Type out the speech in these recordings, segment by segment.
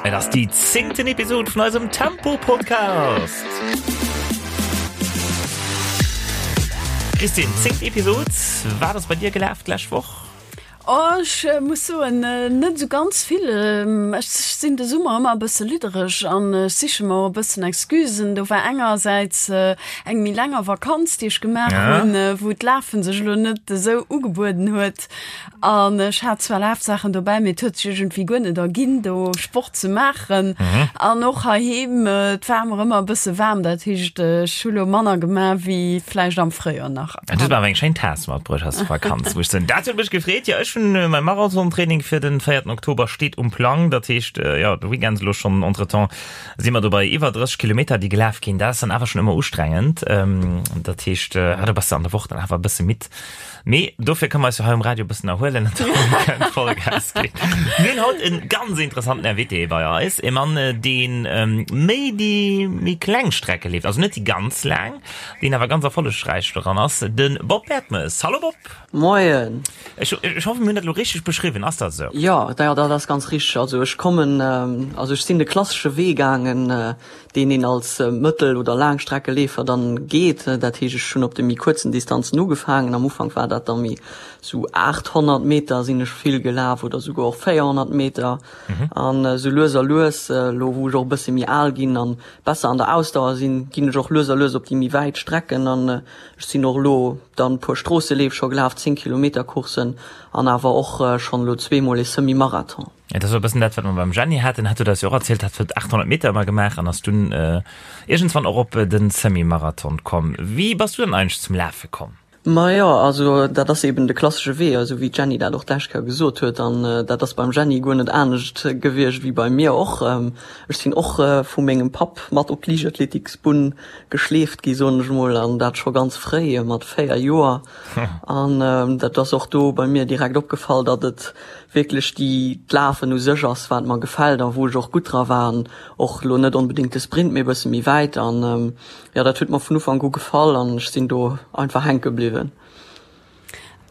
Et ass déi zéngten Episod vun eisem Tempo-Podcast. Christine, zéngt Episod, wat ass bei dir gelaf d'lescht Woch? Oh, ech muss soen, net esou ganz vill. Ech sinn de Summer ëmmer e bësse liddereg an ech siche mer och e bëssen Excusen. Do war engersäits eng méi länger Vakanz, déi ech gemaach hunn, wou d'Lafe sech elo net esou ugebueden huet. An ech hat zwar Lafsaachen dobäi, mee et huet sech iergendwéi guer net erginn, do Sport ze maachen. An och heiheem, et war mer ëmmer e bësse waarm, dat heescht, ech hu lo manner gemaach wéi vläicht am Fréijoer nach. Du hues mer awer eng schéin Taass matbruecht aus der Vakanz, muss ech soen. Dat huet mech gefreet. Jo, ech hunn mäi Marathontraining fir den véierten Oktober steet um Plang. Dat heescht, jo, de Weekend elo schonn. Entretemps si mer do bei iwwer 30 Kilometer, déi gelaf ginn. Dat ass dann awer schonn ëmmer ustrengend. Dat heescht, do bass de an der Woch dann awer e bësse midd. Mee dofir kënne mer eis jo hei um Radio e bëssen erhuelen an dann kënnt Vollgas ginn. Mir hunn haut e ganz interessanten Invité bei eis, e Mann, deen méi déi méi kleng Strecke leeft, also net déi ganz laang, deen awer ganz erfollegräich doran ass, de Bob Bertemes. Hallo Bob! Moien! Ech hoffen, mir hunn dat elo richteg beschriwwen. Ass dat esou? Jo, dat ass ganz richteg. Also ech kommen, also ech sinn de klassesche Wee gaangen, deen een als Mëttel oder Laangstreckeleefer dann geet. Dat heescht, ech hunn op de méi kuerzen Distanzen ugefaangen. Am Ufank war dat da méi sou 800 Meter sinn ech vill gelaf oder souguer och 400 Meter. An esou lues a lues, elo wou ech och e bësse méi al ginn an besser an der Ausdauer sinn, ginn ech och lues a lues op déi méi wäit Strecken. An ech sinn och elo dann e puer Stroosseleef scho gelaf, 10 Kilometer Courssen an awer och schonn elo zweemol ee Semi-Marathon. Et ass e bëssen dat, wat mer beim Jenny haten. Hat huet eis jo och erzielt, hat huet 800 Meter ëmmer gemaach an ass dunn iergendswann och op de Semi-Marathon komm. Wéi bass du dann eigentlech zum Lafe komm? Majo, also dat ass eben de klassesche Wee, esou wéi d'Jenny dat och d'lescht Kéier gesot huet. An dat ass beim Jenny guer net anescht gewiescht wéi bei mir och. Ech sinn och vu mengem Papp mat op d'Liichtathletiksbunn geschleeft gi, soen ech mol, an dat scho ganz fréi, mat 4 Joer. An dat ass och do bei mir direkt opgefall, datt et wierklech déi d'Lafen u sech ass, wat mer gefält a wou ech och gutt dra war an och elo net onbedéngt de Sprint, mee e bësse méi wäit. An jo, dat huet mer vun Ufank u gefall an ech sinn do einfach hänke bliwwen.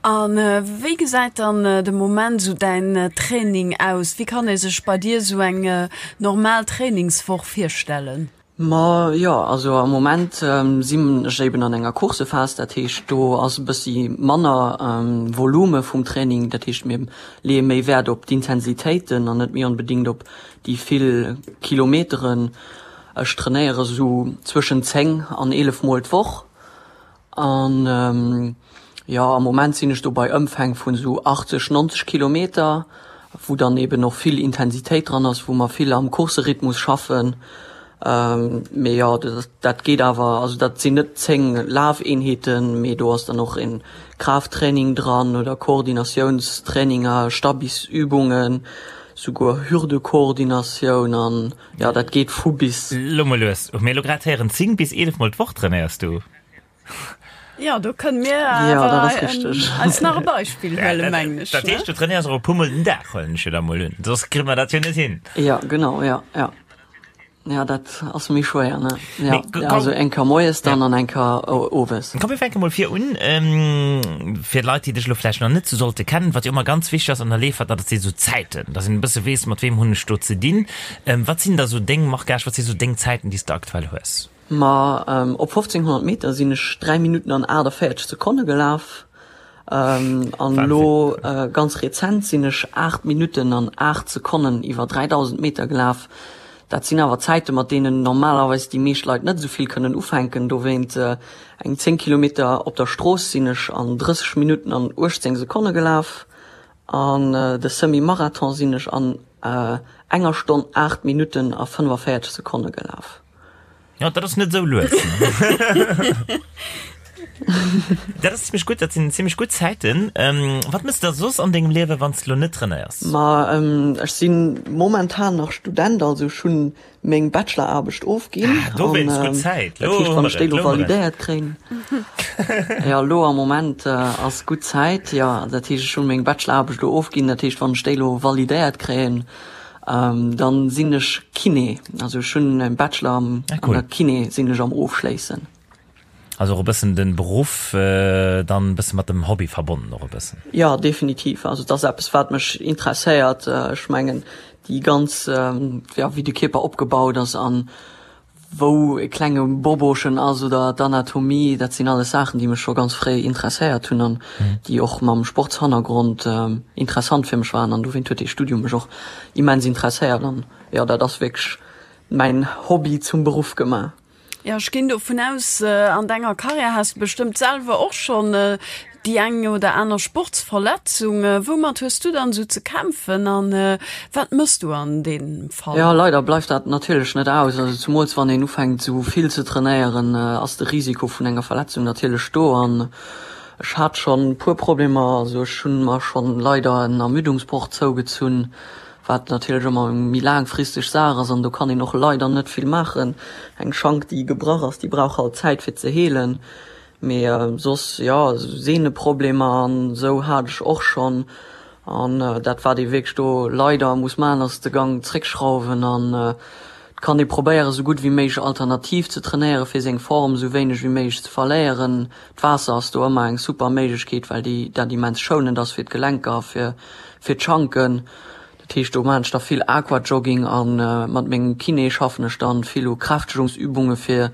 A wéi gesäit dann de Moment esou däin Training aus? Wéi kann ee sech bei dir esou eng normal Trainingswoch virstellen? Ma jo, also am Moment sinn ech eben an enger Coursephas, dat heescht do ass e bëssi manner Volume vum Training, dat heescht mir leeë méi Wäert op d'Intensitéiten an net méi onbedéngt op déi vill Kilometeren. Ech trainéiere sou zwëschen 10 an 11 mol d'Woch An jo, am Moment sinn ech do bei Ëmfäng vun esou 80, 90 Kilometer, wou dann eben och vill Intensitéit dran ass, wou mer vill am Courserhythmus schaffen. Mee jo, dat geet awer, also dat sinn net 10 Lafeenheeten, mee do ass dann och e Kraafttraining dran oder Koordinatiounstraininger, Stabisübungen, souguer Hürdekoordinatioun an jo, dat geet vu bis. Lo mol lues, hu mir elo grad héieren, 10 bis 11 mol d'Woch trainéiers du? Ja, do kënne mir Ja, dat ass richteg. eis nach e Beispill huelen, mengen ech. Dat heescht, du trainéiers och e puer mol den Dag, huelen ech jo da mol un, soss kritt mer dat jo net hin. Ja, genau, ja, ja. Ja, dat ass méi schwéier, ne? Ja, ja, also eng Kéier moies dann an eng Kéier owes. Komm, mir fänke mol vir un. Fir d'Leit, déi dech elo vläicht nach net sou sollte kennen, wat jo ëmmer ganz wichteg ass an der Leefahrt, dat si sou Zäiten, dass een e bësse weess, mat weem hunn ech do ze dinn. Wat sinn da sou deng Marquage, wat si sou deng Zäiten, déi s de aktuell hues? Ma op 1500 Meter sinn ech 3 Minutten an 48 Sekonne gelaf. An elo ganz rezent sinn ech 8 Minutten an 8 Sekonnen iwwer 3000 Meter gelaf. Dat sinn awer Zäite mat deenen normalerweis déi meescht Leit net esou vill kënnen ufänken. Dowéint eng 10 Kilometer op der Strooss sinn ech an 30 Minutten an 18 Sekonne gelaf. An de Semi-Marathon sinn ech an enger Stonn 8 Minutten a 45 Sekonne gelaf. Ja, dat ass net esou lues. Dat ass zimmlech gutt, dat sinn zimmlech gutt Zäiten. Ähm, wat mëss de da soss an dengem Liewe, wann s de lo net trainéiers? Ma ähm, ech si momentan nach Student, also ech hunn meng Bacheloraarbecht ofginn. Ah, dowéinst gutt Zäit. Lo dat heescht, wann ech déi lo validéiert kréien. Ja, lo am Moment äh, ass gutt Zäit, jo. Dat heescht, ech hunn meng Bacheloraarbecht lo ofginn, dat heescht, wann ech déi lo validéiert kréien, Dann sinn ech Kiné, also ech hunn e Bachelor an der Kiné sinn ech am ofschléissen. Also och e bëssen den Beruff dann e bësse mat dem Hobby verbonnen och e bëssen? Jo definitiv, also et ass eppes wat mech interesséiert. Ech mengen. déi ganz, jo, wéi de Kierper opgebaut ass an wou e klenge Bobochen ass oder d'Anatomie, dat sinn alles Saachen, déi mech scho ganz fréi interesséiert hunn an déi och mam Sportshannergrond interessant fir mech waren an dowéint huet dee Studium mech och immens interesséiert an jo, dat ass wierklech mäin Hobby zum Beruff gemaach. Jo, ech ginn dovun aus, an denger Karriär has de bestëmmt selwer och schonn déi eng oder aner Sportsverletzung. Woumat hues du dann esou ze kämpfen an wat mëss du an deem Fall? Jo, leider bleift dat natierlech net aus. Also zumools wann een ufänkt esou vill ze trainéieren, ass de Risiko vun enger Verletzung natierlech do. An ech hat schonn e puer Problemer. Also ech hunn mer schonn leider en Ermüdungsbroch zougezunn. Wat natierlech ëmmer eng méi laangfristeg Saach ass an do kann een och leider net vill maachen. Eng Schank, déi gebrach ass, déi brauch halt Zäit fir ze heelen. Mee soss, jo, Sehneproblemer an esou hat ech och schonn. An dat wat ee wierklech do leider muss maachen, ass de Gang zréckschrauwen an et kann ee probéieren, esou gutt wéi méiglech alternativ ze trainéieren, fir seng Form esou wéineg wéi méiglech ze verléieren. D'Waasser ass do ëmmer eng super Méiglechkeet, well déi dat immens schounend ass fir d'Gelenker a fir fir d'Schanken. Dat heescht, do maachen ech da vill Aquajogging a mat mengem Kiné schaffen ech dann vill u Kräftegungsübunge fir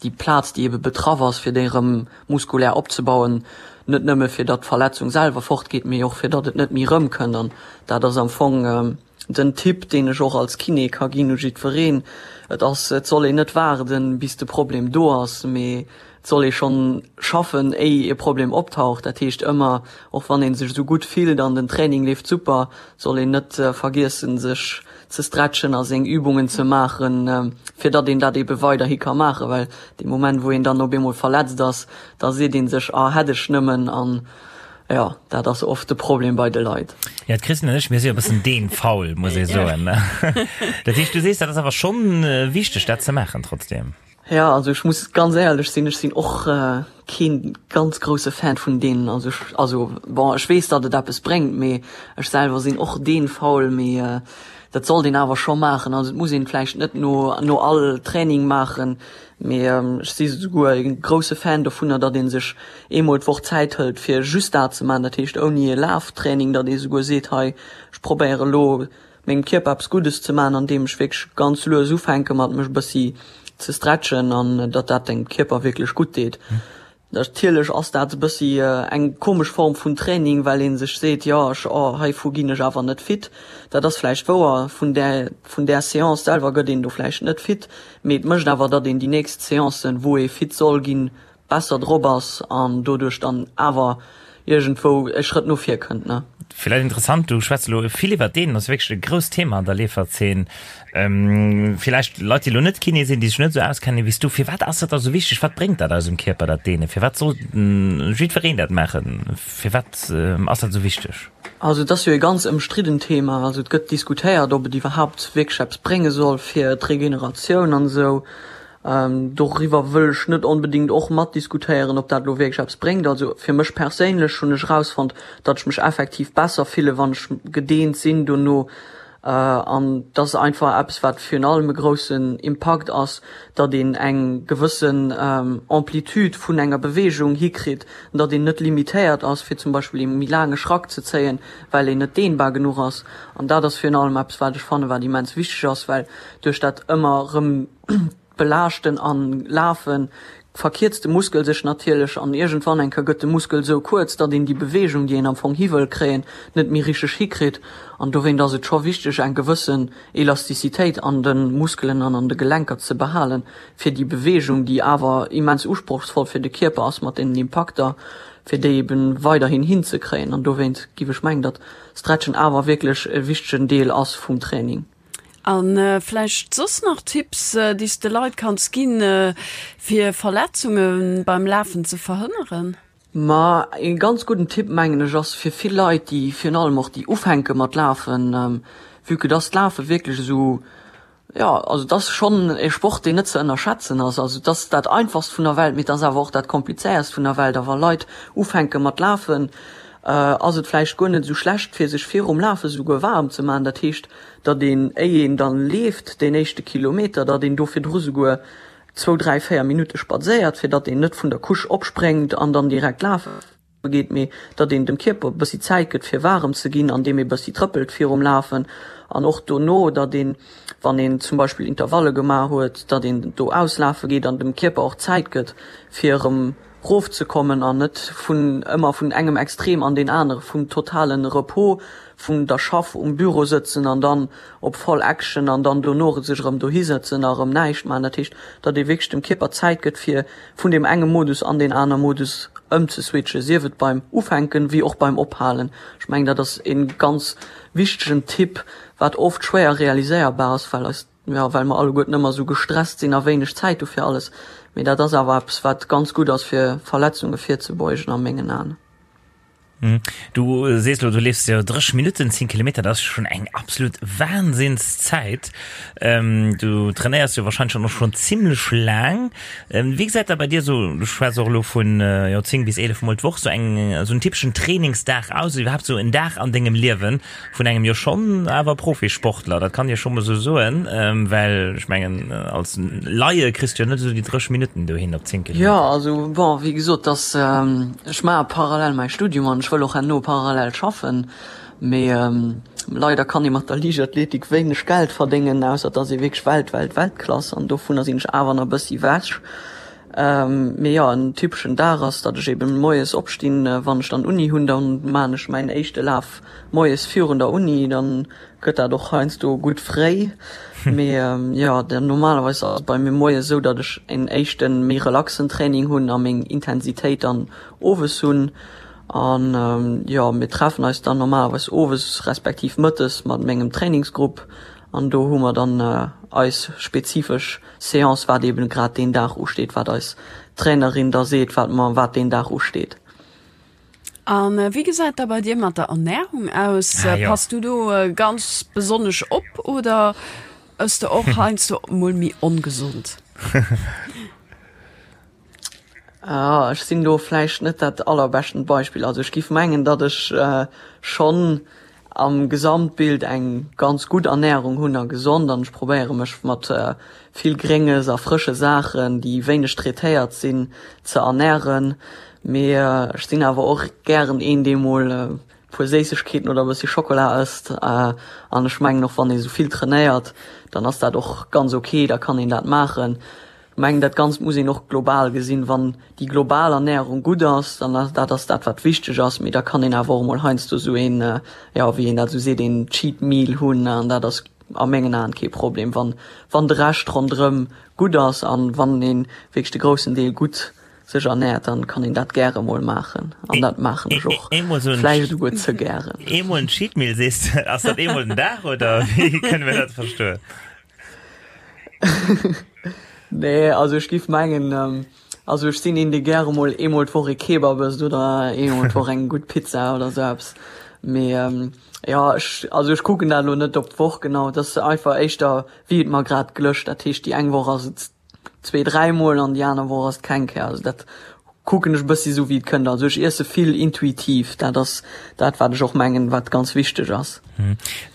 déi Plaz, déi ebe betraff ass, fir déi erëm muskulär opzebauen. Net nëmme fir datt d'Verletzung selwer fortgeet, mee och fir datt et net méi erëmkënnt. An dat ass am Fong den Tipp, deen ech och als Kiné ka ginn u jiddwereen. Et ass, et soll een net waarden, bis de Problem do ass, mee Et soll ee schonn schaffen, éi e Problem optaucht. Dat heescht ëmmer, och wann ee sech esou gutt fillt an den Training leeft super, soll een net vergiessen, sech ze stretchen a seng Übungen ze maachen, fir datt een dat ebe weiderhi ka maachen. Well dee Moment, wou een dann op eemol verletzt ass, da seet ee sech, ah hätt ech nëmmen. An jo, dat ass oft de Problem bei de Leit. Jo, d'Christine an ech, mir si jo e bëssen deenfaul, muss ee soen. Dat heescht, du sees, dat ass awer schonn wichteg, dat ze maachen trotzdeem. Ja, also ech muss ganz éierlech sinn, ech sinn och kee ganz grousse Fan vun deenen. Also ech, also bon, ech weess, datt et eppes bréngt, mee ech selwer sinn och deenfaul. Mee dat sollt een awer scho maachen. Also et muss een vläicht net no no all Training maachen, mee ech si souguer e grousse Fan dovunner, datt ee sech eemol d'Woch Zäit hëlt, fir just dat ze maachen. Dat heescht ouni e Laftraining, datt ee souguer seet, hei ech probéiere elo mengem Kierper eppes Guddes ze maachen, andeem ech wierklech ganz lues ufänke mat mech e bëssi ze stretchen an datt dat dengem Kierper wierklech gutt deet. Natierlech ass dat e bëssi eng komesch Form vun Training, well ee sech seet, jo ech, oh heivu ginn ech awer net fit. Dat ass vläicht wouer, vun där vun där Seance selwer gëtt een do vläicht net fit, mee et mécht awer, datt een déi nächst Seancen, wou ee fit soll ginn, besser drop ass an doduerch dann awer iergendwou e Schrëtt no vir kënnt, ne? Villäicht interessant, du schwätz elo vill iwwert deen, ass wierklech e grousst Thema an der Leeferzeen. Villäicht Leit, déi elo net Kiné sinn, déi sech net esou auskennen wéi s du, firwat ass dat da esou wichteg? Wat bréngt dat eisem Kierper, dat Deenen? Firwat soll jiddwereen dat maachen? Firwat ass dat esou wichteg? Also et ass jo e ganz ëmstriddent Thema. Also et gëtt diskutéiert, ob et iwwerhaapt wierklech eppes brénge soll fir d'Regeneratioun an esou. Doriwwer wëll ech net onbedingt och matdiskutéieren, ob dat elo wierklech eppes bréngt. Also fir mech perséinlech hunn ech erausfonnt, datt ech mech effektiv besser fillen, wann ech gedeent sinn dono. An dat ass einfach eppes, wat virun allem e groussen Impakt ass, datt een eng gewëssen Amplitude vun enger Beweegung hikritt, datt een net limitéiert ass, fir zum Beispill ee méi laange Schrack ze zéien, well een net dehnbar genuch ass. An dat ass virun allem eppes, wat ech fannen, wat immens wichteg ass, well duerch dat ëmmer erëm Belaaschten an Lafen verkierzt de Muskel sech natierlech an iergendwann eng Kéier gëtt de Muskel esou kuerz, datt een déi Beweegung, déi een am Fong hi wëll kréien, net méi richteg hikritt. An dowéint ass et scho wichteg, eng gewëssen Elastizitéit an de Muskelen an an de Gelenker ze behalen, fir déi Beweegung, déi awer immens usprochsvoll fir de Kierper ass mat deenen Impakter, fir déi eben weiderhin hinzekréien. An dowéint giff ech mengen, datt Stretchen awer wierklech e wichtegen Deel ass vum Training. A vläicht soss nach Tipps, déi s de Leit kanns ginn, fir Verletzunge beim Lafen ze verhënneren? Ma ee ganz gudden Tipp, mengen ech, ass fir vill Leit, déi virun allem och déi ufänke mat lafen, vue que dass d'Lafe wierklech esou, jo, also et ass schonn e Sport, deen net ze ënnerschätzen ass. Also et ass dat einfachst vun der Welt, mee et ass awer och dat komplizéierst vun der Welt. A wa Leit ufänke mat lafen, ass et vläicht guer net esou schlecht, fir sech virum Lafe souguer waarm ze maachen. Dat heescht, datt een, éi een dann leeft, deen éischte Kilometer, datt een do virdru souguer zwou, dräi, véier Minutte spadséiert, fir datt een net vun der Couche opspréngt an dann direkt lafe. geet, mee datt een dem Kierper e bëssi Zäit gëtt fir waarem ze ginn, andeem ee bëssi trëppelt virum Lafen an och dono, datt een, wann een zum Beispill Intervalle gemaach huet, datt een do auslafe geet an dem Kierper och Zäit gëtt fir erëm rofzekommen an net vun ëmmer vun engem Extrem an deen anere, vum totale Repos, vun der Schaff um Büro sëtzen an dann op voll Action an dann dono sech erëm dohi sëtzen a erëm näischt maachen. Dat heescht, datt ee wierklech dem Kierper Zäit gëtt fir vun deem enge Modus an deen aner Modus ëmzeswitchen, sief et beim Ufänken wéi och beim Ophalen. Ech mengen, dat ass e ganz wichtegen Tipp, wat oft schwéier realiséierbar ass, well eis, jo, well mer alleguerten ëmmer esou gestresst sinn a wéineg Zäit hu fir alles. Mee dat ass awer eppes, wat ganz gutt ass, fir Verletzunge virzebeugen a mengen Aen. Du sees lo, du leefs jo 30 Minutten 10 Kilometer, dat ass schonn eng absolut Wahnsinnszäit. Du trainéiers jo wahrscheinlech dann och schonn zimlech laang. Wéi gesäit da bei dir esou, du schwätz och elo vun jo 10 bis 11 mol d'Woch, sou eng esou en typeschen Trainingsdag aus, oder iwwerhaapt sou en Dag an dengem Liewen? Vun engem jo schonn awer Profisportler, dat kann ee scho mol esou soen, well ech mengen als Laie kriss du jo net esou déi 30 Minutten dohin op 10 Kilometer. Jo, also bon, wéi gesot, dass ech maache parallel mäi Studium an ech wëll och herno parallel schaffen, mee leider kann ee mat der Liichtathletik wéineg Geld verdéngen, ausser et ass ee wierklech Welt, Welt, Weltklass an dovunner sinn ech awer nach e bëssi ewech. Mee jo, en typeschen Dag ass, datt ech eben moies opstinn, wann ech dann Uni hunn, dann maan ech mäin éischte Laf moies virun der Uni, dann gëtt dat och heiansdo gutt fréi. Mee jo, dann normalerweis ass et bei mir moies esou, datt ech en éischten méi relaxen Training hunn a meng Intensitéit dann owes hunn. An jo, mir treffen eis dann normalerweis owes respektiv mëttes mat mengem Trainingsgrupp an do hu mer dann eis spezifesch Seance, wat eben grad deen Dag usteet, wat eis Trainerin da seet, wat mer, wat deen Dag usteet. A wéi gesäit da bei dir mat der Ernährung aus? Ah, jo. Pass du do ganz besonnesch op oder ëss de och heiansdo mol méi ongesond? Ah, ech sinn do vläicht net dat allerbeschten Beispill. Also ech giff mengen, datt ech schonn am Gesamtbild eng ganz gutt Ernährung hunn a gesond an ech probéiere mech mat vill Grénges a frësche Saachen, déi wéineg traitéiert sinn, ze ernähren. Mee ech sinn awer och gären een, dee mol e puer Séissegkeeten oder e bëssi Schokola ësst. An ech mengen och, wann ee sou vill trainéiert, dann ass dat och ganz ok, da kann een dat maachen. Ech mengen, dat Ganzt muss een och global gesinn. Wann déi global Ernährung gutt ass, dann ass dat ass dat, wat wichteg ass. Mee da kann een awer och emol heiansdo esou een, jo, wéi een dat esou seet, een Cheat Meal hunn. An dat ass a mengen Aen kee Problem, wann, wann de Rescht ronderëm gutt ass an wann ee wierklech de groussen Deel gutt sech ernährt, dann kann een dat gäre mol maachen. An dat maachen ech och vläicht esouguer ze gären. Eemol en Cheat Meal sees de, ass dat eemol den Dag oder wéi kënne mir dat verstoen? Nee, also ech giff mengen, also ech sinn een dee gäre mol eemol d'Woch ee Kebab ësst oder eemol d'Woch eng gutt Pizza oder sou eppes. Mee jo, ech, also ech kucken dat elo net op d'Woch genau, et ass einfach éischter wéi et mer grad glëscht. Dat heescht déi eng Woch ass et zwee, dräimol an déi aner Woch ass et keng Kéier. Also dat kucken ech e bëssi sou wéi et kënnt. Also ech iesse vill intuitiv, dat ass dat wat ech och mengen, wat ganz wichteg ass.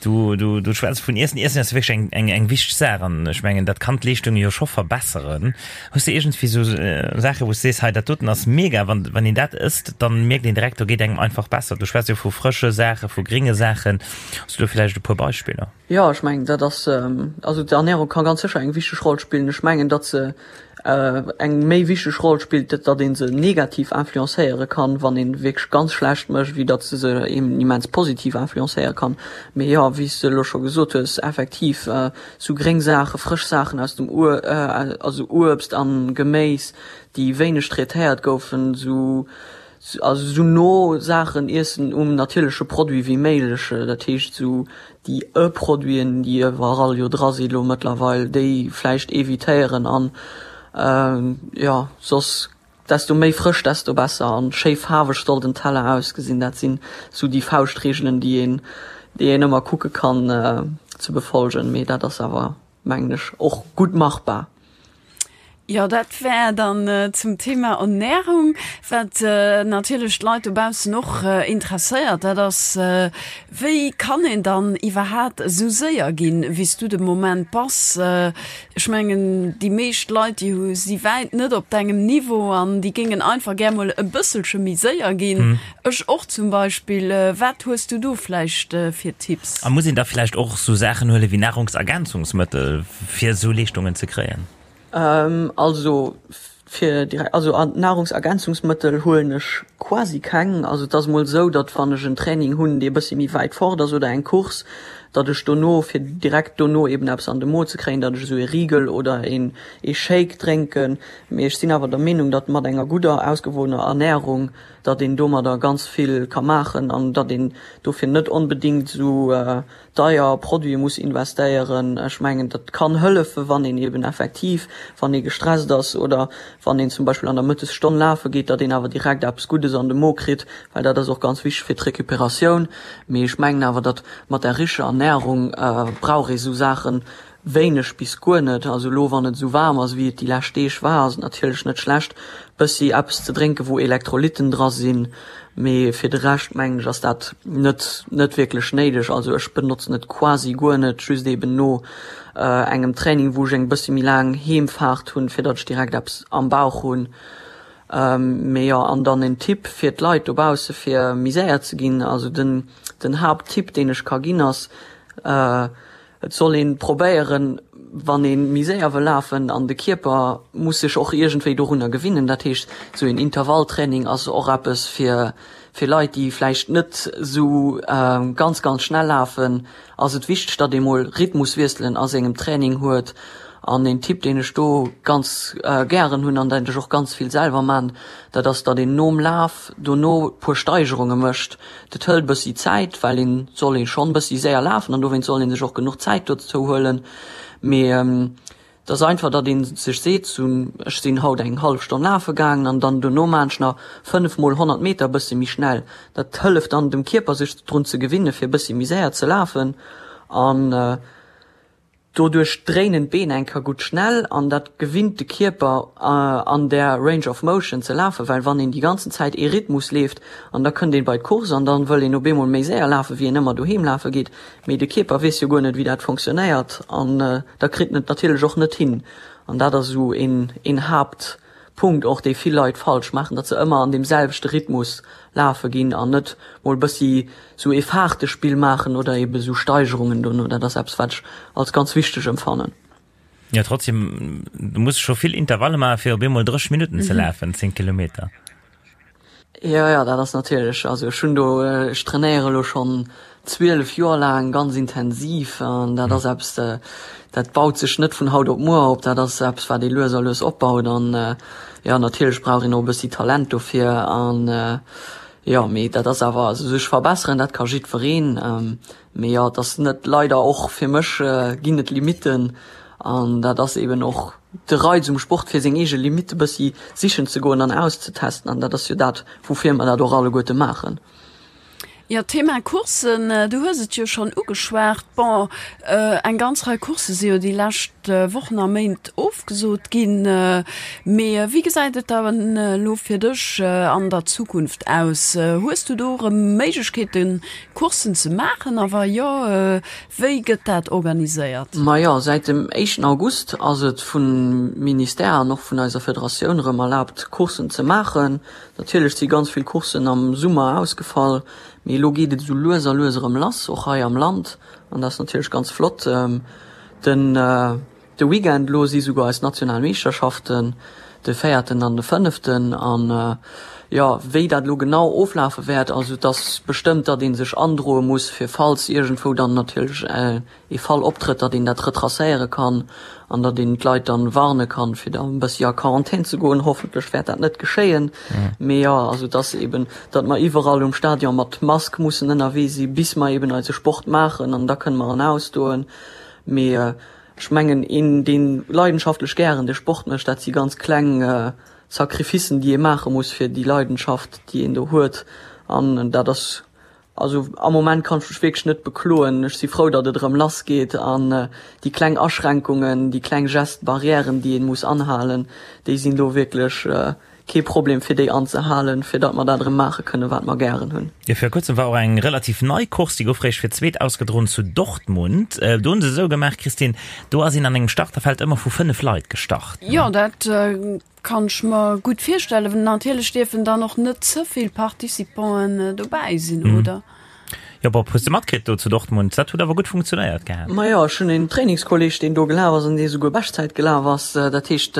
Du, du, du schwätz vun Iessen. Iessen ass wierklech eng, eng, eng wichteg Saach an ech mengen dat kann d'Leeschtung jo scho verbesseren. Hues de iergendwéi sou Saache wou s de sees, hei dat doten ass mega, wann, wann een dat ësst, dann mierkt een direkt, do geet engem einfach besser. Du schwätz jo vu frësche Saache, vu gringe Saachen. Hues du do villäicht e puer Beispiller? Jo, ech mengen, dat ass, also d'Ernährung ka ganz sécher eng wichteg Roll spillen. Ech mengen, datt se eng méi wichteg Roll spillt, datt ee se negativ influencéiere kann, wann ee wierklech ganz schlecht mécht, wéi datt se se eben immens positiv influencéiere kann. Mee jo, wéi s de elo scho gesot hues, effektiv sou gréng Saachen, frësch Saachen aus dem Ur, also Uebst an Geméis, déi wéineg traitéiert goufen, sou Also sou no Saachen iessen um natierleche Produit wéi méiglech, dat heescht sou déi E-Produiten, déi iwwerall jo dra si lo mëttlerweil, déi vläicht evitéieren an jo soss desto méi frësch desto besser an schéi faarweg soll den Teller ausgesinn. Dat sinn sou déi Fauschtreegelen déi een déi een ëmmer kucke kann ze befolgen, mee dat ass awer mengen ech och gutt machbar. Jo, dat wär dann zum Thema Ernährung. Wat natierlech d'Leit dobaussen och interesséiert, dat ass, Wéi kann een dann iwwerhaat esou séier ginn, wéi s du de Moment bass? Ech mengen, déi meescht Leit, déi hu si wäit net op dengem Niveau an déi géingen einfach gär mol e bësselche méi séier ginn. Ech och zum Beispill. Wat hues du do vläicht fir Tipps? A muss een da vläicht och esou Saachen huele wéi Nahrungsergänzungsmëttel, fir esou Leeschtungen ze kréien? Also fir direkt, also Nahrungsergänzungsmëttel huelen ech quasi keng. Also et ass mol esou, datt wann ech en Training hunn, dee e bëssi méi wäit fort ass oder eng Course, datt ech dono, fir direkt dono eben eppes an de Mo ze kréien, datt ech esou ee Rigel oder een ee Shake drénken. Mee ech sinn awer der Meenung, datt mat enger gudder, ausgewogener Ernährung, datt een domadder ganz vill ka maachen an datt een dofir net onbedéngt esou deier Produite muss investéieren. Ech mengen, dat kann hëllefen, wann een eben effektiv, wann ee gestresst ass oder wann een zum Beispill an der Mëttesstonn lafe geet, datt een awer direkt eppes Guddes an de Mo kritt, well dat ass och ganz wichteg fir d'Recuperatioun. Mee ech mengen awer, datt mat der richer Ernährung brauch ee sou Saache Wéineg bis guer net. Also elo wann et esou waarm ass wéi et déi lescht Deeg war, ass et natierlech net schlecht bëssi eppes ze drénken wou Elektrolytten dra sinn, mee fir de Rescht mengen ech ass dat net net wierklech néideg. Also ech benotzen et quasi guer net, just eben no engem Training wou ech eng bëssi méi laang Heemfaart hunn, fir datt ech direkt eppes am Bauch hunn. Mee jo, an dann en Tipp fir d'Leit dobausse fir méi séier ze ginn, also den den Haapttipp deen ech ka ginn ass, Et soll een probéieren, wann een méi séier wëll lafen, an de Kierper muss sech och iergendwéi dorunner gewinnen. Dat heescht, sou een Intervalltraining ass och eppes fir fir Leit, déi vläicht net sou ganz, ganz schnell lafen, ass et wichteg, datt ee mol Rhythmuswiesselen a sengem Training huet. An een Tipp, deen ech do ganz gären hunn an dat ech och ganz vill selwer man, dat ass, datt een nom Laf dono puer Steigerunge mécht. Dat hëlt bëssi Zäit, well een soll ee schonn bëssi séier lafen an dowéinst soll een sech och genuch Zäit dozou huelen. Mee et ass einfach, datt ee sech seet, sou ech sinn haut eng hallef Stonn lafe gaangen an dann dono maan ech nach 5 mol 100 Meter bëssi méi schnell. Dat hëlleft dann dem Kierper sech drun ze gewinne fir bëssi méi séier ze lafen an. Doduerch dréinen d'Been eng Kéier gutt schnell an dat gewinnt de Kierper an där Range of Motion ze lafen, well wann een déi ganzen Zäit ee Rhythmus leeft an da kënnt een bei d'Course an dann wëll een op eemol méi séier lafen wéi een ëmmer doheem lafe geet, mee de Kierper weess jo guer net wéi dat fonctionnéiert an da kritt en et natierlech och net hin an dat ass esou een een Haapt Punkt och, dee vill Leit falsch maachen, datt se ëmmer an deem selwechte Rhythmus lafe ginn an net mol bëssi sou ee Faartespill maachen oder ebe sou Steigerungen dono. Dat ass eppes, wat ech als ganz wichteg emfannen. Jo, trotzdem, du muss scho vill Intervalle maachen, fir op eemol 30 Minutten ze lafen, 10 Kilometer. Jo, jo, dat ass natierlech, also ech hunn do, ech trainéiere elo schonn 12 Joer laang ganz intensiv an dat ass eppes, dat baut sech net vun haut op muer op, dat ass eppes, wat ee lues a lues opbaut an jo, natierlech brauch een och e bëssi Talent dofir an jo, mee dat ass awer, also sech verbesseren, dat ka jiddwereen, mee jo, et ass net, leider och fir mech ginn et Limitten an dat ass eeben och de Reiz um Sport fir seng eege Limitte bëssi sichen ze goen an auszetesten an dat ass jo dat woufir mer dat och alleguerte maachen. Jo, Thema Courssen, du hues et jo schonn ugeschwat. Bon, eng ganz Rei Coursse si jo déi lescht Wochen a Méint ofgesot ginn. Mee wéi gesäit et dann elo fir dech an der Zukunft aus? Hues du do erëm Méiglechkeeten, Courssen ze maachen a wa jo, Wéi gëtt dat organiséiert? Majo, säit dem éischten August ass et vum Ministère an och vun eiser Federatioun erëm erlaabt Courssen ze maachen. Natierlech si ganz vill Courssen am Summer ausgefall, mee elo geet et esou lues a lues erëm lass, och hei am Land an dat ass natierlech ganz flott. Den. De Weekend elo si souguer eis national Meeschterschaften, de véierten an de fënneften. An jo, wéi dat elo genau oflafe wäert, also et ass bestëmmt, datt ee sech androe muss, fir falls iergendwou dann natierlech ee Fall optrëtt, datt een dat retracéiere kann an datt een d'Leit dann warne kann, fir da e bëssi a Quarantän ze goen. Hoffentlech wäert dat net geschéien. Mee jo, also et ass eeben, datt mer iwwerall um Stadion mat Mask mussen ënnerwee si bis mer eeben eise Sport maachen an da kënne mer en ausdoen. Mee ech mengen, een, dee leidenschaftlech gären de Sport mécht, dat si ganz kleng Sacrificen, déi ee maache muss fir déi Leidenschaft, déi een do huet. An dat ass. Also am Moment kann ech mech wierklech net bekloen. Ech si frou, datt et erëm lass geet an déi kleng Aschränkungen, déi kleng Gestes barrièren, déi een muss anhalen, déi sinn do wierklech kee Problem fir déi anzehalen, fir datt mer dat erëm maache kënnen, wat mer gären hunn. Jo, vir kuerzem war och eng relativ nei Course, déi gouf réischt fir d'zweet ausgedroen zu Dortmund. Do hunn se esou gemaach, Christine, do ass een an engem Starterfeld ëmmer vu 5 Leit gestart. Jo, dat Kann ech mer gutt virstellen. Natierlech dierfen dann och net ze vill Participanten dobäi sinn, oder? Jo, Bob, hues de matkritt do zu Dortmund? Dat huet awer gutt funktionéiert gehat. Majo, ech hunn een Trainingskolleg, deen do gelaf ass an dee souguer Beschtzäit gelaf ass. Dat heescht,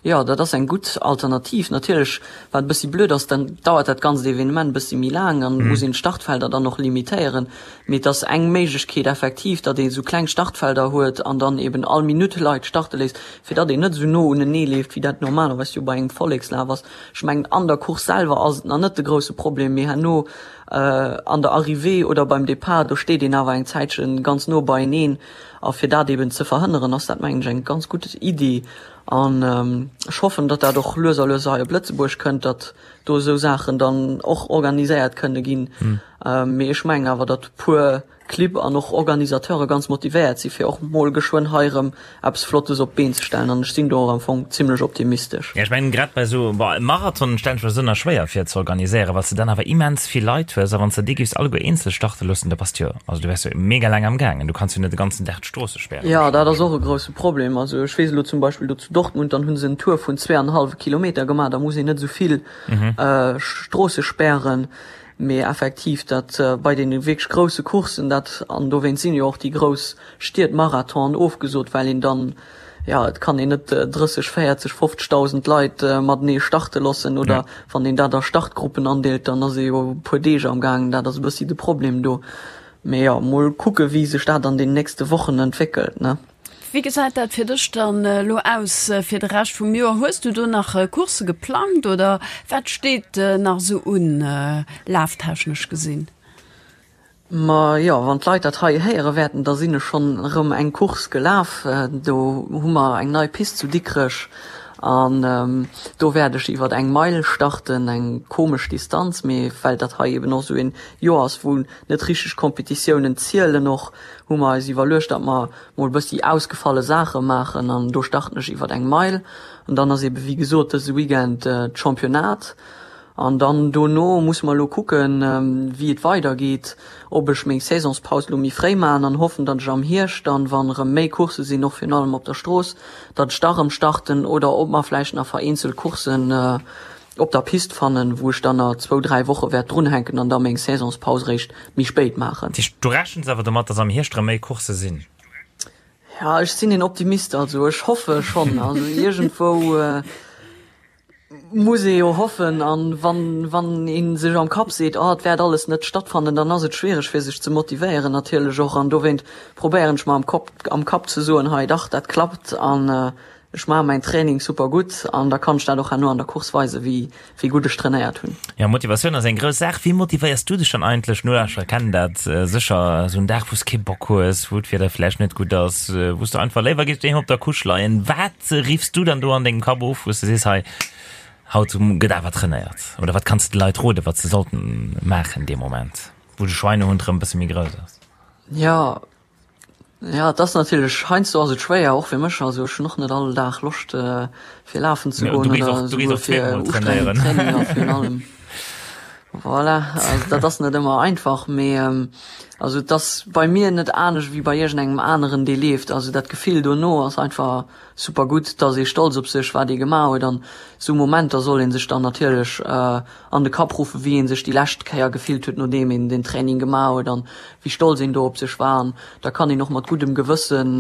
jo, dat ass eng gutt Alternativ. Natierlech, wat e bëssi blöd ass, dann dauert dat ganzt Evenement e bëssi méi laang an muss een d'Startfelder dann och limitéieren. Mee et ass eng Méiglechkeet effektiv, datt ee sou kleng Startfelder huet an dann eben all Minutt Leit starte léisst. fir datt een net esou no unenee leeft, wéi dat normalerweis jo bei engem Vollekslaf ass. Ech mengen, an der Course selwer ass et nach net de grousse Problem, mee herno an der Arrivée oder beim Depart, do steet een awer eng Zäitche ganz no beieneen. A fir dat eben ze verhënneren, ass dat, mengen ech, eng ganz gutt Iddi. An ech hoffen, datt dat och lues a lues hei op Lëtzebuerg kënnt, datt do esou Saachen dann och organiséiert kënne ginn. Mee ech mengen awer, datt puer Clibb an och Organisateure ganz motivéiert si fir och mol geschwënn hei erëm eppes Flottes op d'Been ze stellen an ech sinn do och am Fong zimlech optimistesch. Jo, ech mengen grad bei esou, bon, e Marathon stellen ech mer esou nach schwéier vir ze organiséieren, well s de dann awer immens vill Leit hues a wann s de déi géifs alleguer eenzel starte loossen, da bass de jo, also du wäers jo mega laang am gaangen, du kanns jo net de ganzen Dag d'Stroosse spären. Jo, dat ass och e grousse Problem. Also ech weess elo zum Beispill do zu Dortmund, dann hu se en Tour vun zweeanenhallwe Kilometer gemaach, da muss een net esou vill Stroosse spären. Mee effektiv, dat bei deene wierklech grousse Courssen, dat, an dowéinst sinn jo och déi grouss Stied Marathonen ofgesot, well een dann, jo, et kann een net 30, 40, 50.000 Leit matenee starte loossen, oder wann een dat a Startgruppen andeelt, dann ass ee jo e puer Deeg am gaangen. Dat ass e bëssi de Problem do. Mee jo, mol kucke wéi sech dat an den nächste Wochen entwéckelt, ne. Wéi gesäit dat fir dech dann elo aus fir de Rescht vum Joer? Hues du do nach Coursse geplangt oder wat steet nach esou un, laftechnesch gesinn? Ma jo, wann d'Leit dat hei héiere wäerten, da sinn ech schonn erëm eng Course gelaf. Do hu mer eng nei Pist zu Dikrech an do wäert ech iwwer eng Meil starten, eng komesch Distanz, mee well dat hei eben och esou een Joer ass, wou net richteg Kompetitiounen zielen och, hu mer eis iwwerluecht, datt mer mol bëssi ausgefalle Saache maachen an do starten ech iwwert eng Meil an dann ass ebe wéi gesot dëse Weekend d'Championnat an dann dono musse mer elo kucken, wéi et weider geet, ob ech meng Saisonspaus elo méi fréi maachen an hoffen, datt ech am Hierscht dann, wann erëm méi Coursse sinn, och virun allem op der Strooss, datt ech da erëm starten oder ob mer vläicht nach vereenzelt Courssen op der Pist fannen, wou ech dann nach zwou, dräi Woche wäert drunhänken an da meng Saisonspaus réischt méi spéit maachen. Dat heescht, du rechens awer domat, dass am Hierscht erëm méi Coursse sinn? Ja, ech sinn een Optimist, also ech hoffe schonn. Also iergendwou muss ee jo hoffen. An wann, wann ee sech am Kapp seet, oh et wäert alles net stattfannen, dann ass et schwiereg fir sech ze motivéieren natierlech och. An dowéint probéieren ech mer am Kopp, am Kapp ze soen, hei dach, dat klappt an Ech maache mäin Training super gutt an da kann ech dat och herno an der Course weisen, wéi wéi gutt ech trainéiert hunn. Jo, Motivatioun ass eng grouss Saach. Wéi motivéiers du dech dann eigentlech? Nolauschterer kennen dat sécher, esou en Dag, wou s kee Bock hues, wou d'Wieder vläicht net gutt ass, wou s du einfach léiwer géifs doheem op der Couche leien. Wat riffs du dann do an dengem Kapp of, wou s du sees, hei, haut gëtt awer trainéiert? Oder wat kanns de de Leit roden, wat se sollten maachen dee Moment, wou de Schweinehund erëm e bësse méi grouss ass? Jo, Ja, et ass natierlech, heiansdo ass et schwéier, och fir mech. Also ech hunn och net all Dag Loscht fir lafen ze goen oder esouguer fir ustrengend Traininger virun allem. Voilà, also dat ass net ëmmer einfach, mee also et ass bei mir net anescht wéi bei iergendengem aneren, dee leeft. Also dat Gefill dono ass einfach super gutt, et ass ee stolz op sech, wat ee gemaach huet an esou Momenter soll ee sech dann natierlech an de Kapp ruffen, wéi ee sech déi lescht Kéier gefillt huet, nodeem een den Training gemaach huet an wéi stolz een do op sech war. An da kann een och mat guddem Gewëssen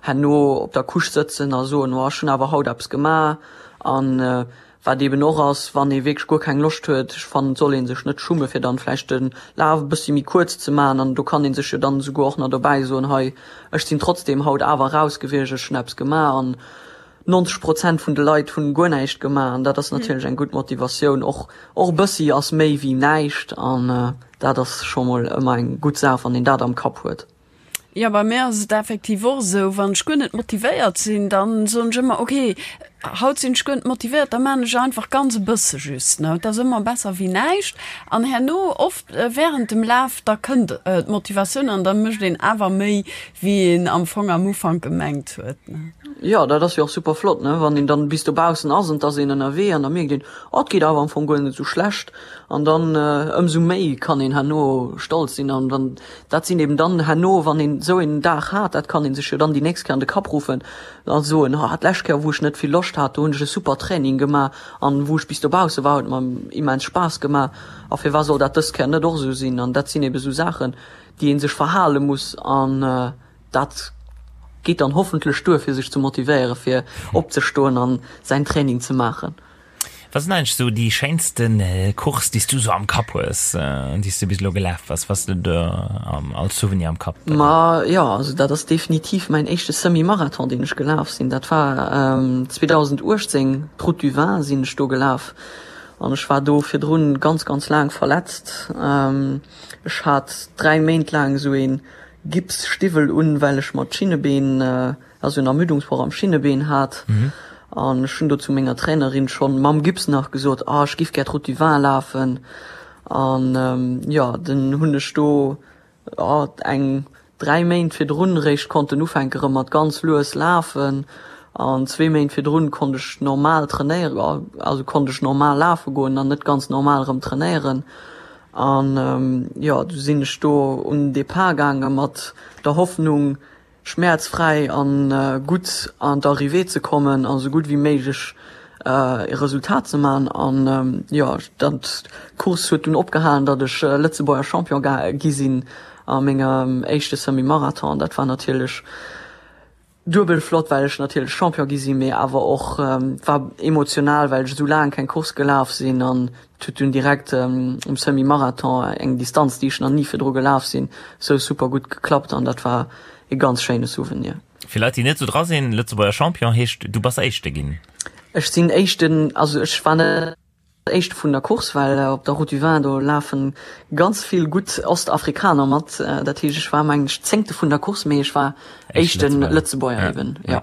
herno op der Couche sëtzen a soen, oh ech hunn awer haut eppes gemaach. An wat eeben och ass, wann ee wierklech guer keng Loscht huet, ech fannen et soll ee sech net schumme fir dann vläicht de Laf e bëssi méi kuerz ze maachen an do kann ee sech jo dann esouguer och nach dobäi soen, hei ech sinn trotzdeem haut awer raus gewiescht, ech hunn eppes gemaach. An 90 Prozent vun de Leit hunn guer näischt gemaach an dat ass natierlech eng gutt Motivatioun. Och och e bëssi ass méi wéi näischt an dat ass scho mol ëmmer eng gutt Saach, wann een dat am Kapp huet. Jo, bei mir ass et effektiv och esou, wann ech guer net motivéiert sinn, dann soen ech ëmmer, ok, Haut sinn ech guer net motivéiert, da maan ech einfach ganz e bësse just, ne. Et ass ëmmer besser wéi näischt. An herno oft während dem Laf, da kënnt d'Motivatioun an da mécht een awer méi wéi een am Fong am Ufank gemengt huet, ne. Jo, dat ass jo och super flott, ne, wann een dann bis dobaussen ass an et ass een ënnerwee an da mierkt een, oh, et geet awer am Fong guer net esou schlecht. An dann ëmsou méi kann een herno stolz sinn. An dann, dat sinn eben dann herno, wann een esou een Dag hat, dat kann ee sech jo dann déi nächst Kéier an de Kapp ruffen, a soen, ha d'lescht Kéier wou ech net vill Loscht hat, do hunn ech e super Training gemaach an wou ech bis dobausse war, huet mer immens Spaass gemaach a firwat soll dat dës Kéier net och esou sinn? An dat sinn ebe sou Saachen, déi ee sech verhale muss an dat geet dann hoffentlech duer fir sech ze motivéiere fir opzestoen an säin Training ze maachen. Wat sinn eigentlech sou déi schéinsten Course déi s du sou am Kapp hues, déi s du bis elo gelaf bass? Was du do als Souvenir am Kapp? Ma jo, also dat ass definitiv mäin éischte Semi-Marathon deen ech gelaf sinn. Dat war 2018, d'Route du Vin sinn ech do gelaf an ech war do virdrun ganz ganz laang verletzt. Ech hat 3 Méint laang esou ee Gipsstiwwel un, well ech mer d'Schinnebeen also en Ermüdungsbroch am Schinnebeen hat an ech hunn do zu menger Trainerin schonn mam Gips nach gesot, ah ech giff gär d'Route du Vin lafen an jo dann hunn ech do eng 3 Méint virdrun réischt konnten ufänke rëm mat ganz lues lafen an zwee Méint virdrun konnt ech normal trainéieren, also konnt ech normal lafe goen an net ganz normal rëm trainéieren an jo du sinn ech do un den Depart gaange mat der Hoffnung schmäerzfräi an gutt an d'Arrivée ze kommen a sou gutt wéi méiglech e Resultat ze man. An jo, dat d'Course huet dunn opgehalen, datt ech Lëtzebuerger Champion gi sinn a mengem éischte Semi-Marathon. Dat war natierlech duebel flott, well ech natierlech Champion gi sinn, mee awer och war emotional, well ech esou laang keng Course gelaf sinn an Et huet dunn direkt um Semi-Marathon, eng Distanz déi ech nach ni virdru gelaf sinn, sou super gutt geklappt an dat war e ganz schéine Souvenir. Fir Leit déi net sou dra sinn, Lëtzebuerger Champion heescht du bass Éischte ginn? Ech sinn Éischten, also ech war net Éischte vun der Course, well op der Route du Vin do lafen ganz vill gutt Ostafrikaner mat. Dat heescht ech war mengen ech Zéngte vun der Course, mee ech war éischte Lëtzebuerger eben, jo.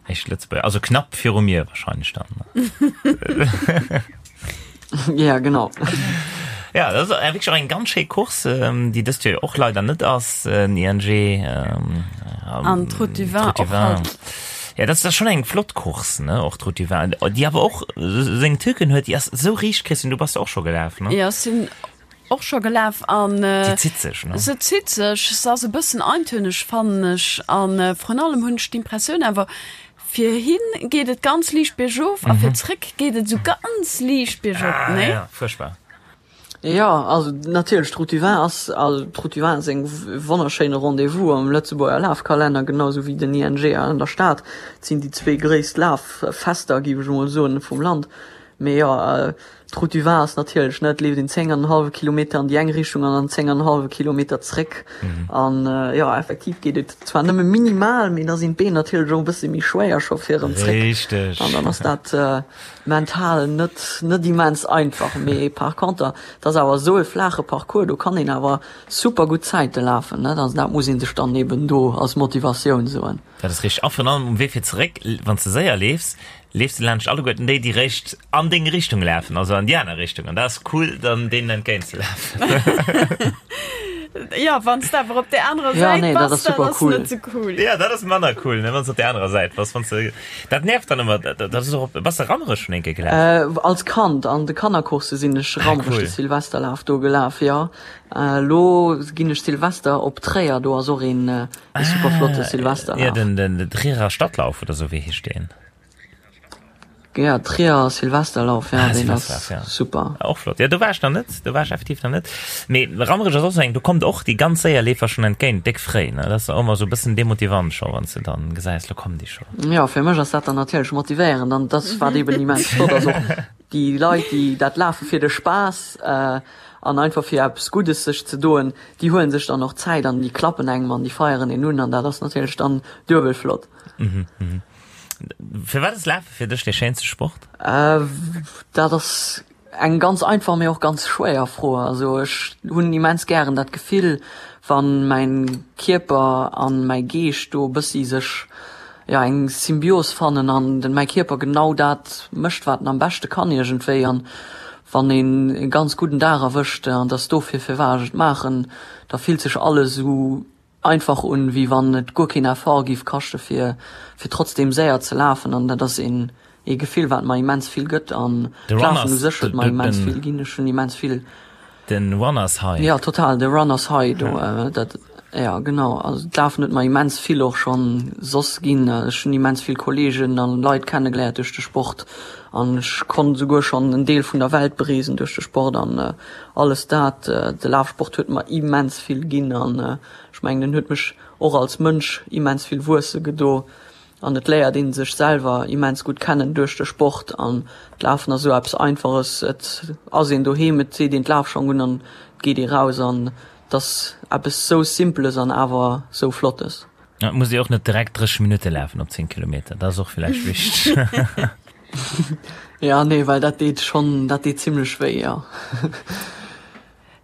Éischt Lëtzebuerger, also knapp viru mir wahrscheinlech dann. Ja, genau. Ja, dat ass wierklech och eng ganz schéi Course, déi dëst Joer jo och leider net ass, den ING. An d'Route du Vin och halt. Ja, dat ass schonn eng flott Course, ne, och d'Route du Vin, déi awer och seng Tücken huet, déi ass esou riicht, Christine, du bass jo och scho gelaf, ne? Jo, ech sinn Och scho gelaf an Se zitt sech, ne? Se zitt sech, se ass e bëssen eintönig fannen ech an vrun allem hunn ech d'Impressioun awer fir hin geet et ganz liicht biergof a fir zréck geet et esou ganz liicht biergop, Ah nee? ja, fuerchtbar. Jo, also natierlech d'Route du Vin ass, also d'Route du Vin ass eng wonnerschéine Rendez-vous am Lëtzebuerger Lafkalenner, genau esou wéi den ING an der Stad. Et sinn déi zwee gréisst Laffester, géif ech emol soen, vum Land. Mee jo, D'Route du Vin ass natierlech, ne, et leeft een 10 an en hallwe Kilometer an déi eng Richtung an dann 10 an en hallwe Kilometer zréck. An jo, effektiv geet et zwar nëmme minimal, mee da sinn d'Been natierlech och e bësse méi schwéier scho fir erëm zréck. Richteg. An dann ass dat mental net, net immens einfach. Mee par conter, et ass awer esou e flaache Parcours, do kann een awer super gutt Zäite lafen, ne. Also dat muss ee sech dann eben do als Motivatioun soen. Dat ass richteg. A virun allem um Wee fir zeréck, wann s de séier leefs, leefs de laanscht alleguerten déi, déi réischt an deng Richtung lafen, also an déi aner Richtung. An dat ass cool, dann deenen entgéint ze lafen. Jo, wann s de awer op där anerer Ja, Säit nee, dat bass, ass dat super ass cool. net sou cool. Ja, dat ass manner cool, ne, wann s de op där anerer Säit bass. Wann s de, dat nervt dann ëmmer. Dat ass och op, bass de Rammerech schonn eng Kéier gelaf? Äh, als Kand an de Kannercoursse sinn ech Ah, Rammerech cool. de Silvesterlaf do gelaf, jo. Elo ginn ech Silvester op Tréier, do ass och een, e super flotte Ah, ja, Silvesterlaf. den, den, den Trierer Stadtlauf oder sou, wéi heescht deen? Ja, Trierer Silvesterlauf, ja, Ah, deen ass Silvesterlauf, ja. super. Och flott. Ja, do war ech nach net, do war ech effektiv nach net. Mee Rammerech ass och sou eng, do kommt och déi ganz séier Leefer schonn entgéint, déck fréi, ne? Dat ass och ëmmer sou e bëssen demotivant scho, wann s de dann gesäis, lo kommen déi scho. Ja, fir mech ass dat dann natierlech motivéierend an dat wat eben immens flott ass och déi Leit, déi dat lafe fir de Spaass an einfach fir eppes Guddes sech ze doen, déi huelen sech dann och Zäit an déi klappen engem an déi feieren een un an dat ass natierlech dann duebel flott. Firwat ass Lafe fir dech dee schéinste Sport? Dat ass eng ganz einfach, mee och ganz schwéier Fro. Also ech hunn immens gären dat Gefill, wann mäin Kierper an mäi Geescht do e bëssi sech, jo eng Symbios fannen an den mäi Kierper genau dat mécht wat en am beschte kann iergendwéi an wann een e ganz gudden Dag erwëscht an dass dofir firwat ech et maachen, da fillt sech alles esou einfach un wéi wann et guer keen Effort giff kaschte fir fir trotzdem séier ze lafen an dat ass een ee Gefill wat mer immens vill gëtt an De d'Lafen Runners, u sech huet mer immens den vill ginn. Ech hunn immens vill. Den Runners High. Jo total, de Runners High do, dat, jo genau. Also d'Lafen huet mer immens vill och schonn soss ginn. Ech hunn immens vill Kollegen an Leit kennegeléiert duerch de Sport an ech konnt esouguer schonn en Deel vun der Welt bereesen duerch de Sport an alles dat. De Lafsport huet mer immens vill ginn an ech mengen en huet mech och als Mënsch immens vill wuesse gedo. An et léiert een sech selwer immens gutt kennen duerch de Sport. An d'Lafen ass esou eppes Einfaches, et ass een doheem, et seet een d'Lafschong un an et geet ee raus. An et ass eppes sou Simpeles an awer sou Flottes. Et muss ee och net direkt 30 Minutte lafen op 10 Kilometer, dat ass och villäicht wichteg. Jo, nee, well dat deet schonn, dat deet zimmlech wéi, jo.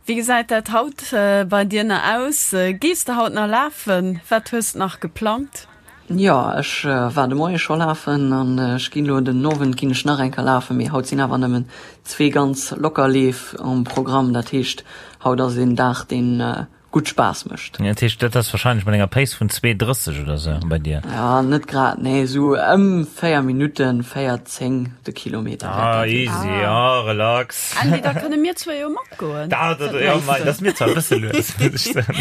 Wéi gesäit dat haut bei dir nach aus? Gees de haut nach lafen? Wat hues de nach geplangt? Jo, ech war de Moie scho lafen an ech ginn elo den Owend ginn ech nach eng Kéier lafen, mee haut sinn awer nëmmen zwee ganz locker Leef um Programm. Dat heescht, haut ass een Dag, deen gutt Spaass mécht. Dat heescht, dat ass wahrscheinlech mat enger Pace vun 2,30 oder sou bei dir? Ja, net grad, nee, sou ëm 4 Minutten, 4,10 de Kilometer wäert dat sinn. Ah, easy, ja, relax. Andy, da kënne mir zwee jo matgoen. Dat, dat, ja, mei, dat ass mir zwar e bësse lues, muss ech soen.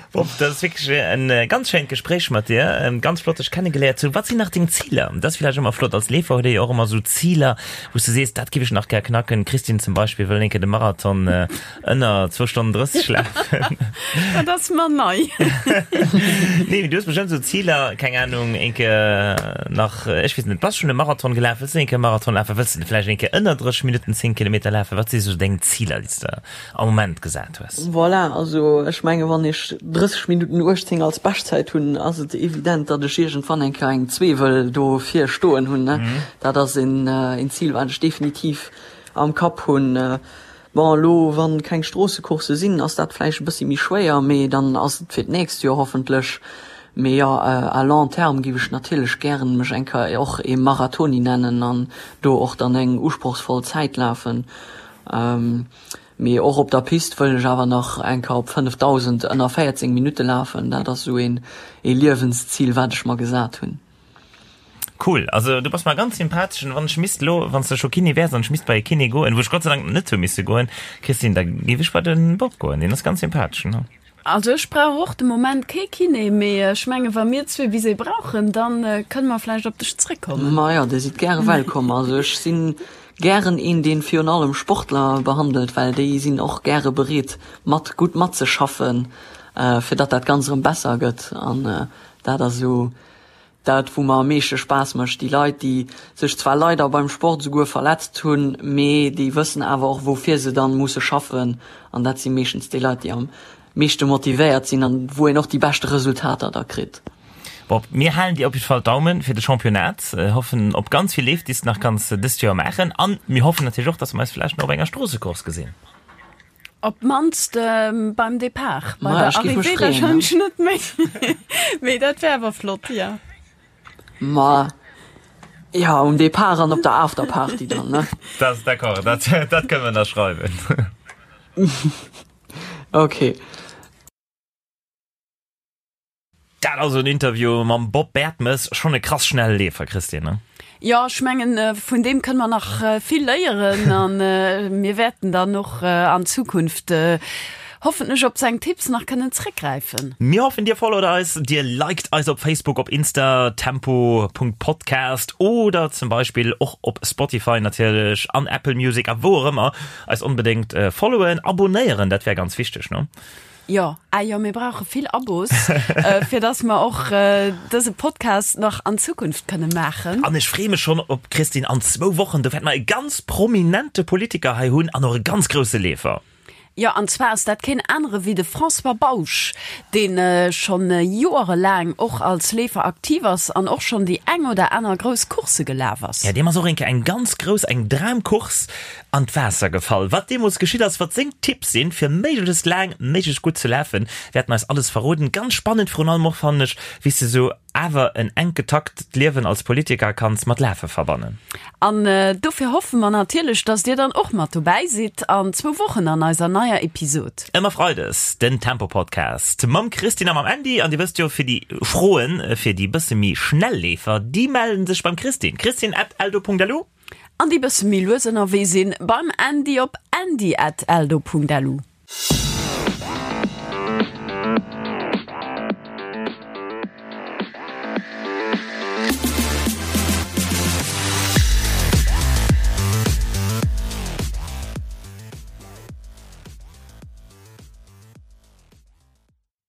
Bob, dat ass wierklech en ganz schéint Gespréich mat dir. Ganz flott dech kennegeléiert ze hunn. Wat sinn nach deng Ziler? Dat ass villäicht ëmmer flott, als Leefer huet ee jo och ëmmer esou Ziler, wou s de sees, dat giff ech nach gär knacken. D'Christine zum Beispill wëll eng Kéier de Marathon ënner zwou Stonnen 30 lafen. Dat ass mer nei. Nee, mee du hues bestëmmt esou Ziler, keng Anung, eng Kéier nach, ech weess net, bass schonn e Marathon gelaf? Wëlls de eng Kéier e Marathon lafen? Wëlls de vläicht eng Kéier ënner 30 Minutten 10 Kilometer lafen? Wat si sou deng Ziler, déi s de am Moment gesat hues? Voilà, also ech menge wann ech 30 Minutten 18 als Beschtzäit hunn, ass et evident, datt ech iergendwann eng Kéier eng zwee wëll do vir stoen hunn. Dat ass een Zil, wat ech definitiv am Kapp hunn. Bon, elo wa keng Stroossecoursse sinn, ass dat vläicht e bëssi méi schwéier, mee dann ass et fir d'nächst Joer hoffentlech. Mee jo, à long terme géif ech natierlech gären mech eng Kéier och ee Marathoni nennen an do och dann eng usprochsvoll Zäit lafen. Mee och op der Pist wëll ech awer nach eng Kéier op 5000 ënner 14 Minutte lafen. Dat ass esou een ee Liewenszil, wat ech mer gesat hunn. Cool, also du bass mer ganz sympathesch an wann ech misst elo, wann s de scho Kiné wäers an ech misst bei e Kiné goen, wou ech Gott sei Dank net hu misse goen, Christine, da géif ech bei de Bob goen, deen ass ganz sympathesch, ne? Also ech brauch och de Moment kee Kiné, mee ech menge wa mir zwee bis ee brauchen, da kënne mer vläicht op dech zréckkommen. Majo, dir sidd gäre wellkomm. Also ech si gären een, dee virun allem Sportler behandelt, well déi sinn och gäre bereet mat gutt matzeschaffen, fir datt dat Ganzt erëm besser gëtt. An dat ass esou Dat wou mer am meeschte Spaass mécht, déi Leit déi sech zwar leider beim Sport esouguer verletzt hunn, mee déi wëssen awer och woufir se dann musse schaffen an dat si meeschtens déi Leit déi am meeschte motivéiert sinn an wou een och déi beschte Resultater da kritt. Bob, mir halen dir op jidde Fall d'Daumen fir de Championnat, hoffen op ganz vill Leef déi s de nach kanns dëst Joer maachen an mir hoffen natierlech och, dass mer eis vläicht nach op enger Stroossecourse gesinn. Op d'mannst beim Depart, bei der Arrivée wahrscheinlech net méi. Mee dat wär awer flott, jo. Ma jo, um Depart an op der Afterparty dann, ne? Dat ass d'accord, dat, dat kënne mer ënnerschreiwen. Okay. Dat also en Interview mam Bob Bertemes, schonn e krass schnelle Leefer, Christine, ne? Jo, ech mengen, vun deem kënne mer nach vill léieren an mir wäerten dann och an Zukunft hoffentlech op seng Tipps nach kënnen zréckgräifen. Mir hoffen, dir followt eis, dir liked eis op Facebook, op Insta, tempo.podcast oder zum Beispill och op Spotify natierlech an Apple Music a wou och ëmmer. Eis onbedéngt followen, abonéieren, dat wär ganz wichteg, ne? Jo, ah jo, mir brauche vill Abos, fir dass mer och dëse Podcast nach an Zukunft kënne maachen. An ech freeë mech schonn op d'Christine an zwou Wochen. Do wäerte mer e ganz prominente Politiker hei hunn an och e ganz grousse Leefer. Jo, an zwar ass dat keen anere wéi de François Bausch, dee schonn joerelaang och als Leefer aktiv ass an och schonn déi eng oder aner grouss Course gelaf ass. Jo, deem ass och eng Kéier eng ganz grouss, eng Dramcourse an d'Waasser gefall. Wat deemools geschitt ass, wat seng Tipps sinn, fir méiglechst laang, méiglechst gutt ze lafen, wäert en eis alles verroden. Ganz spannend virun allem och fannen ech, wéi s de sou awer en enk getakt Liewen als Politiker kanns mat Lafe verbannen. An dofir hoffe mer natierlech, dass dir dann och mat dobäi sidd an zwou Wochen an eiser neier Episod. Ëmmer Freides den Tempo Podcast mam Christine a mam Andy. An dir wësst jo, fir déi Froen fir déi bësse méi schnell Leefer, déi mellen sech beim Christine, christine at eldo.lu. An déi bësse méi lues ënnerwee sinn, beim Andy op andy at eldo.lu.